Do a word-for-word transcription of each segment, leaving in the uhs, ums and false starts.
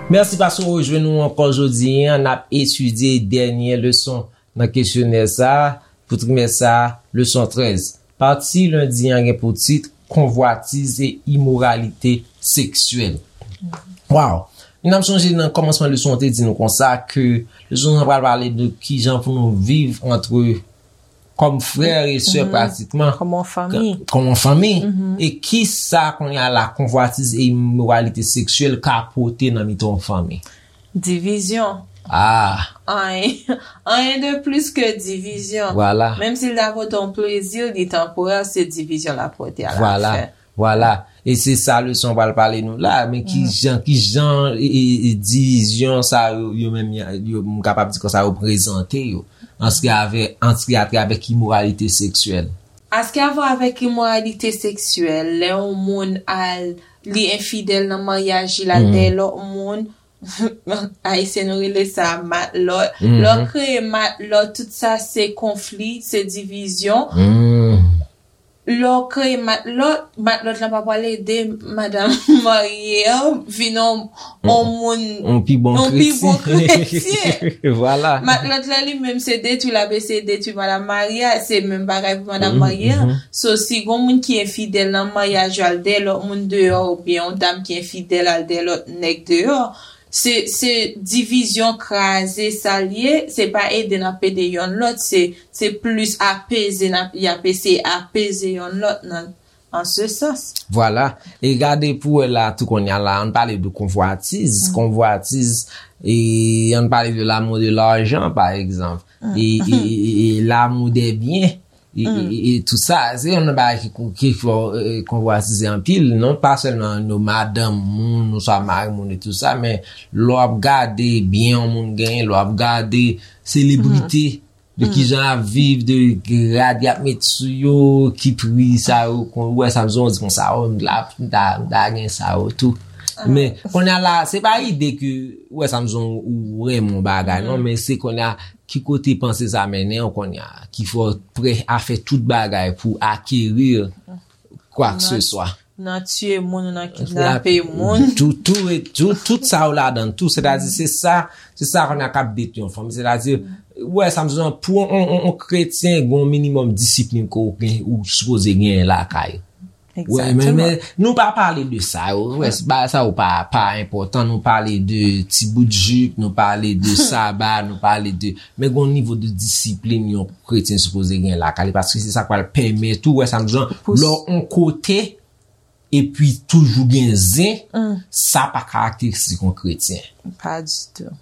Mèsi paske w rejwenn nou ankò jodi a. N ap etidye dènye leson nan kesyonè sa a pou trimès sa a, leson trèz. Pati lendi an gen pou tit Konvwatiz e imoralite seksyèl. Waw! N ap sonje nan kòmansman leson an te di nou konsa ke leson an pral pale de kijan pou nou viv antre kòm frè e sè pratikman. Kòm yon fanmi. Kòm yon fanmi. E ki sa kounye a la konvwatiz e imoralite seksyèl ka pote nan mitan yon fanmi? Divizyon. Ah. Anyen, anyen de plis ke divizyon. Vwala. Menm si l ta pote yon plezi, li tanporè, se divizyon l ap pote a la fen. Vwala. E se sa leson pral pale nou la, men ki jan, ki jan e, e, e divizyon sa yo, yo menm, yo, m kapab di konsa, yo prezante yo. Antre avè, antre atre avèk imoralite seksyèl. Antre avè avèk imoralite seksyèl, lè yon moun al, li enfidèl nan maryaj, li al dèyè lòt moun, Ayisyen nou rele sa matlòt. Lè w kreye matlòt, tout sa se konfli, se divizyon. Lè w kreye matlòt, matlòt la pa pral ede madanm marye an vin yon, yon moun, yon pi bon kretyen. Vwala. Matlòt la li menm se detwi, l ap eseye detwi madanm marye a, se menm bagay pou madanm marye a. So, si gon moun ki enfidèl nan maryaj yo al dèyè lòt moun deyò, oubyen yon dam ki enfidèl al dèyè lòt nèg deyò, se, se divizyon, kraze sa l ye, se pa ede n ap ede yonn lòt, se, se plis apeze n ap, y ap eseye apeze yonn lòt nan, an se sans. Vwala. E gade pou wè la tou kounye a la, ann pale de konvwatiz. Konvwatiz, e ann pale de l'amour de l'argent, pa egzanp. E, e, e, e l'amour des biens. E, e, e, e tout sa, se yon nan bagay ki, ki fè w, e, konvwatize anpil, non pa sèlman nou madanm moun, nou swa mari moun e tout sa, men lè w ap gade byen yon moun genyen, lè w ap gade selebrite, de kijan y ap viv, de grad y ap met sou yo, ki pri sa yo, kon, ou wè sa m di konsa, o, m ta, m ta, m ta gen sa yo tou. Men, kounye a la, se pa ide ke, ou wè sa m di ou renmen yon bagay, non, men se kounye a, ki kote panse sa mennen w kounye a, ki fè w prè a fè tout bagay pou akeri kwa ke se swa. Nan tiye moun, nan kidnape moun. Tout, tout, e tout, tout sa yo ladan tou. Sètadi, se sa, se sa kounye a k ap detwi yon fanmi. Sètadi, ou wè sa m di w, pou yon, yon, yon kretyen, gen yon minimòm disiplin ke w gen, ou sipoze genyen lakay. Wè, men, men, nou pa pale de sa yo. Wè, bagay sa yo pa, pa enpòtan. Nou pale de ti bout jip, nou pale de saba, nou pale de, men gen yon nivo de disiplin yon kretyen sipoze gen lakay li, paske se sa k pral pèmèt ou, wè sa m di w, lè w yon kote, epi toujou gen zen, sa pa karakteristik yon kretyen. Pa ditou.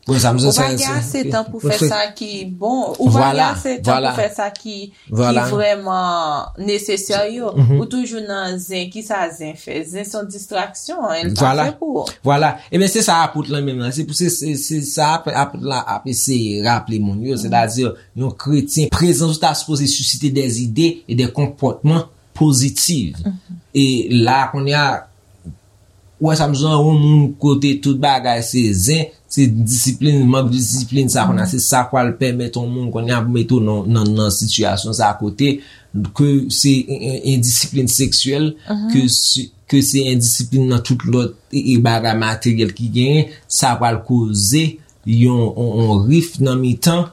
Ou pa gen ase tan pou fè sa ki bon. Ou pa gen ase tan pou fè sa ki, ki vrèman nesesè yo. Ou toujou nan zen. Kisa zen fè? Zen se yon distraksyon, li pa fè pou ou. Vwala. Ebyen, se sa apot lan menm lan. Se pou se, se, se sa apot, apot la ap eseye raple moun yo. Sètadi, yon kretyen, prezans ou ta sipoze sisite dè ide e dè konpòtman pozitif. E la, kounye a, ou wè sa m di w, yon moun kote tout bagay se zen, se disiplin, mank de disiplin, sa kounye a, se sa k pral pèmèt yon moun kounye a mete w nan, nan, nan sitiyasyon sa kote ke se en, en, endisiplin seksyèl, ke se, ke se endisiplin nan tout lòt e, e bagay materyèl ki genyen, sa pral koze yon, yon, yon rif nan mitan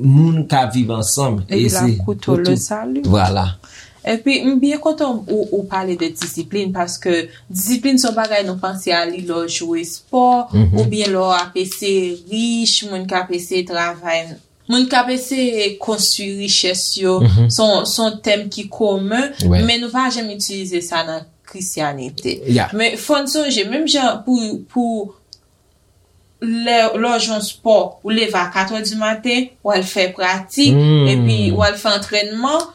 moun k ap viv ansanm. Epi l ap koute w le sali. Vwala. Epi m byen kontan ou, ou pale de disiplin, paske disiplin se yon bagay nou panse a li lè w jwe espò, oubyen lè w ap eseye rich, moun k ap eseye travay, moun k ap eseye konstwi richès yo. Se yon, se yon tèm ki komen, men nou pa janm itilize sa nan Krisyanite. Men fò n sonje, menm jan pou, pou lè, lè w jwe yon spò, ou leve a kat è di maten, w al fè pratik, epi w al fè antrènman,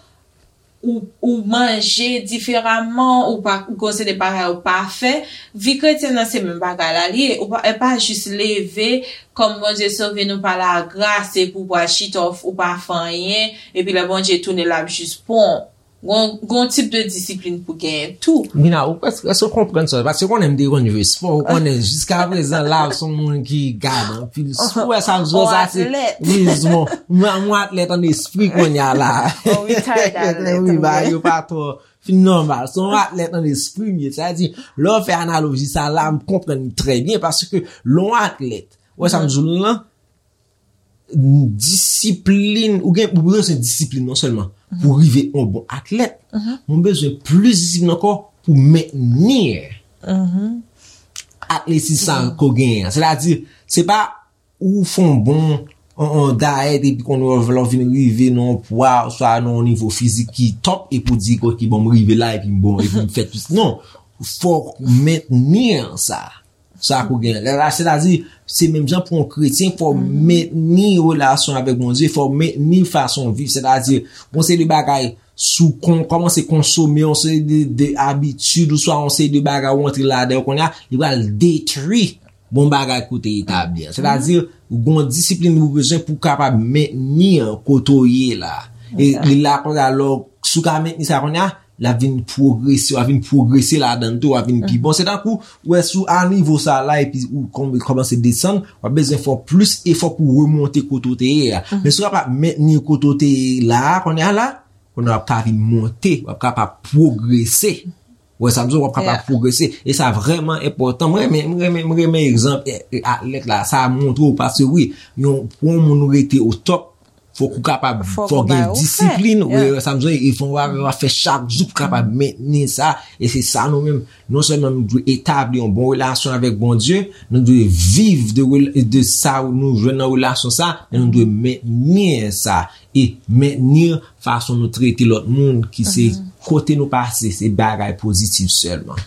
ou, ou manje diferaman, ou pa, ou gen yon seri de bagay ou pa fè. Vi kretyen nan se menm bagay la li ye. Ou pa, e pa jis leve, kòm Bondye sove nou pa lagras, epi w pral chita, ou, ou pa fè anyen, epi lè Bondye tounen, l ap jis pran w. Gon, gon tip de disiplin pou genyen tou. Mina, ou prèske, èske w konprann sa? Paske w konnen m te konn jwe spò, ou konnen jiska prezan la, w se yon moun ki gade anpil spò. Sa m jwe sa, se wi, mwen, mwen atlèt an espri kounye a la. Wi, bagay yo pa twò fin nòmal. Se yon atlèt an espri m ye. Sa di, lè w fè analoji sa la, m konprann trè byen, paske lè yon atlèt, wè sa m di w lan, disiplin, ou gen, ou bezwen disiplin non sèlman pou rive yon bon atlèt, men ou bezwen plis disiplin ankò pou mentni atletis sa ke w genyen an. Sètadi, se pa ou fè yon bon, yon, yon dayèt epi kounye a lè w vin rive nan yon pwa, oswa nan yon nivo fizik ki top, epi w di, "Ok, bon, m rive la, epi m bon, epi m fè tout." Non, fò w mentni sa. Sa ke w gen. Lè la, sètadi, se menm jan pou yon kretyen, fò w mentni relasyon avèk Bondye, fò w mentni fason w viv. Sètadi, gon seri de bagay, si w kon, kòmanse konsome yon seri de, de abitid, oswa yon seri de bagay ou antre ladan yo kounye a, li pral detwi bon bagay ke w te etabli an. Sètadi, gon disiplin ou bezwen pou w kapab mentni an kote w ye la. E li la kounye a, lè w, si w ka mentni sa kounye a, l ap vin pwogrese, w ap vin pwogrese ladan l tou, w ap vin pi bon. Se tankou, ou wè, si w a nivo sa la, epi ou kòm-, kòmanse desann, w ap bezwen fè plis efò pou w remonte kote w te ye a. Men si w kapab mentni kote w te ye la, kounye a la, kounye a w ap ka vin monte, w ap kapab pwogrese. Ou wè sa m di w, w ap kapab pwogrese. E sa vrèman enpòtan. Mwen renmen, mwen renmen, mwen renmen egzanp, e, e, atlèt la, sa montre w, paske wi, yon, pou yon moun rete o top, fòk ou kapab, fòk ou gen disiplin, wi, sa m di w, e fò w ap fè chak jou pou kapab mentni sa, e se sa nou menm, non sèlman nou dwe etabli yon bon relasyon avèk Bondye, nou dwe viv de rel-, de sa nou jwenn nan relasyon sa, men nou dwe mentni sa, e mentni fason nou trete lòt moun ki se kote nou pase, se bagay pozitif sèlman.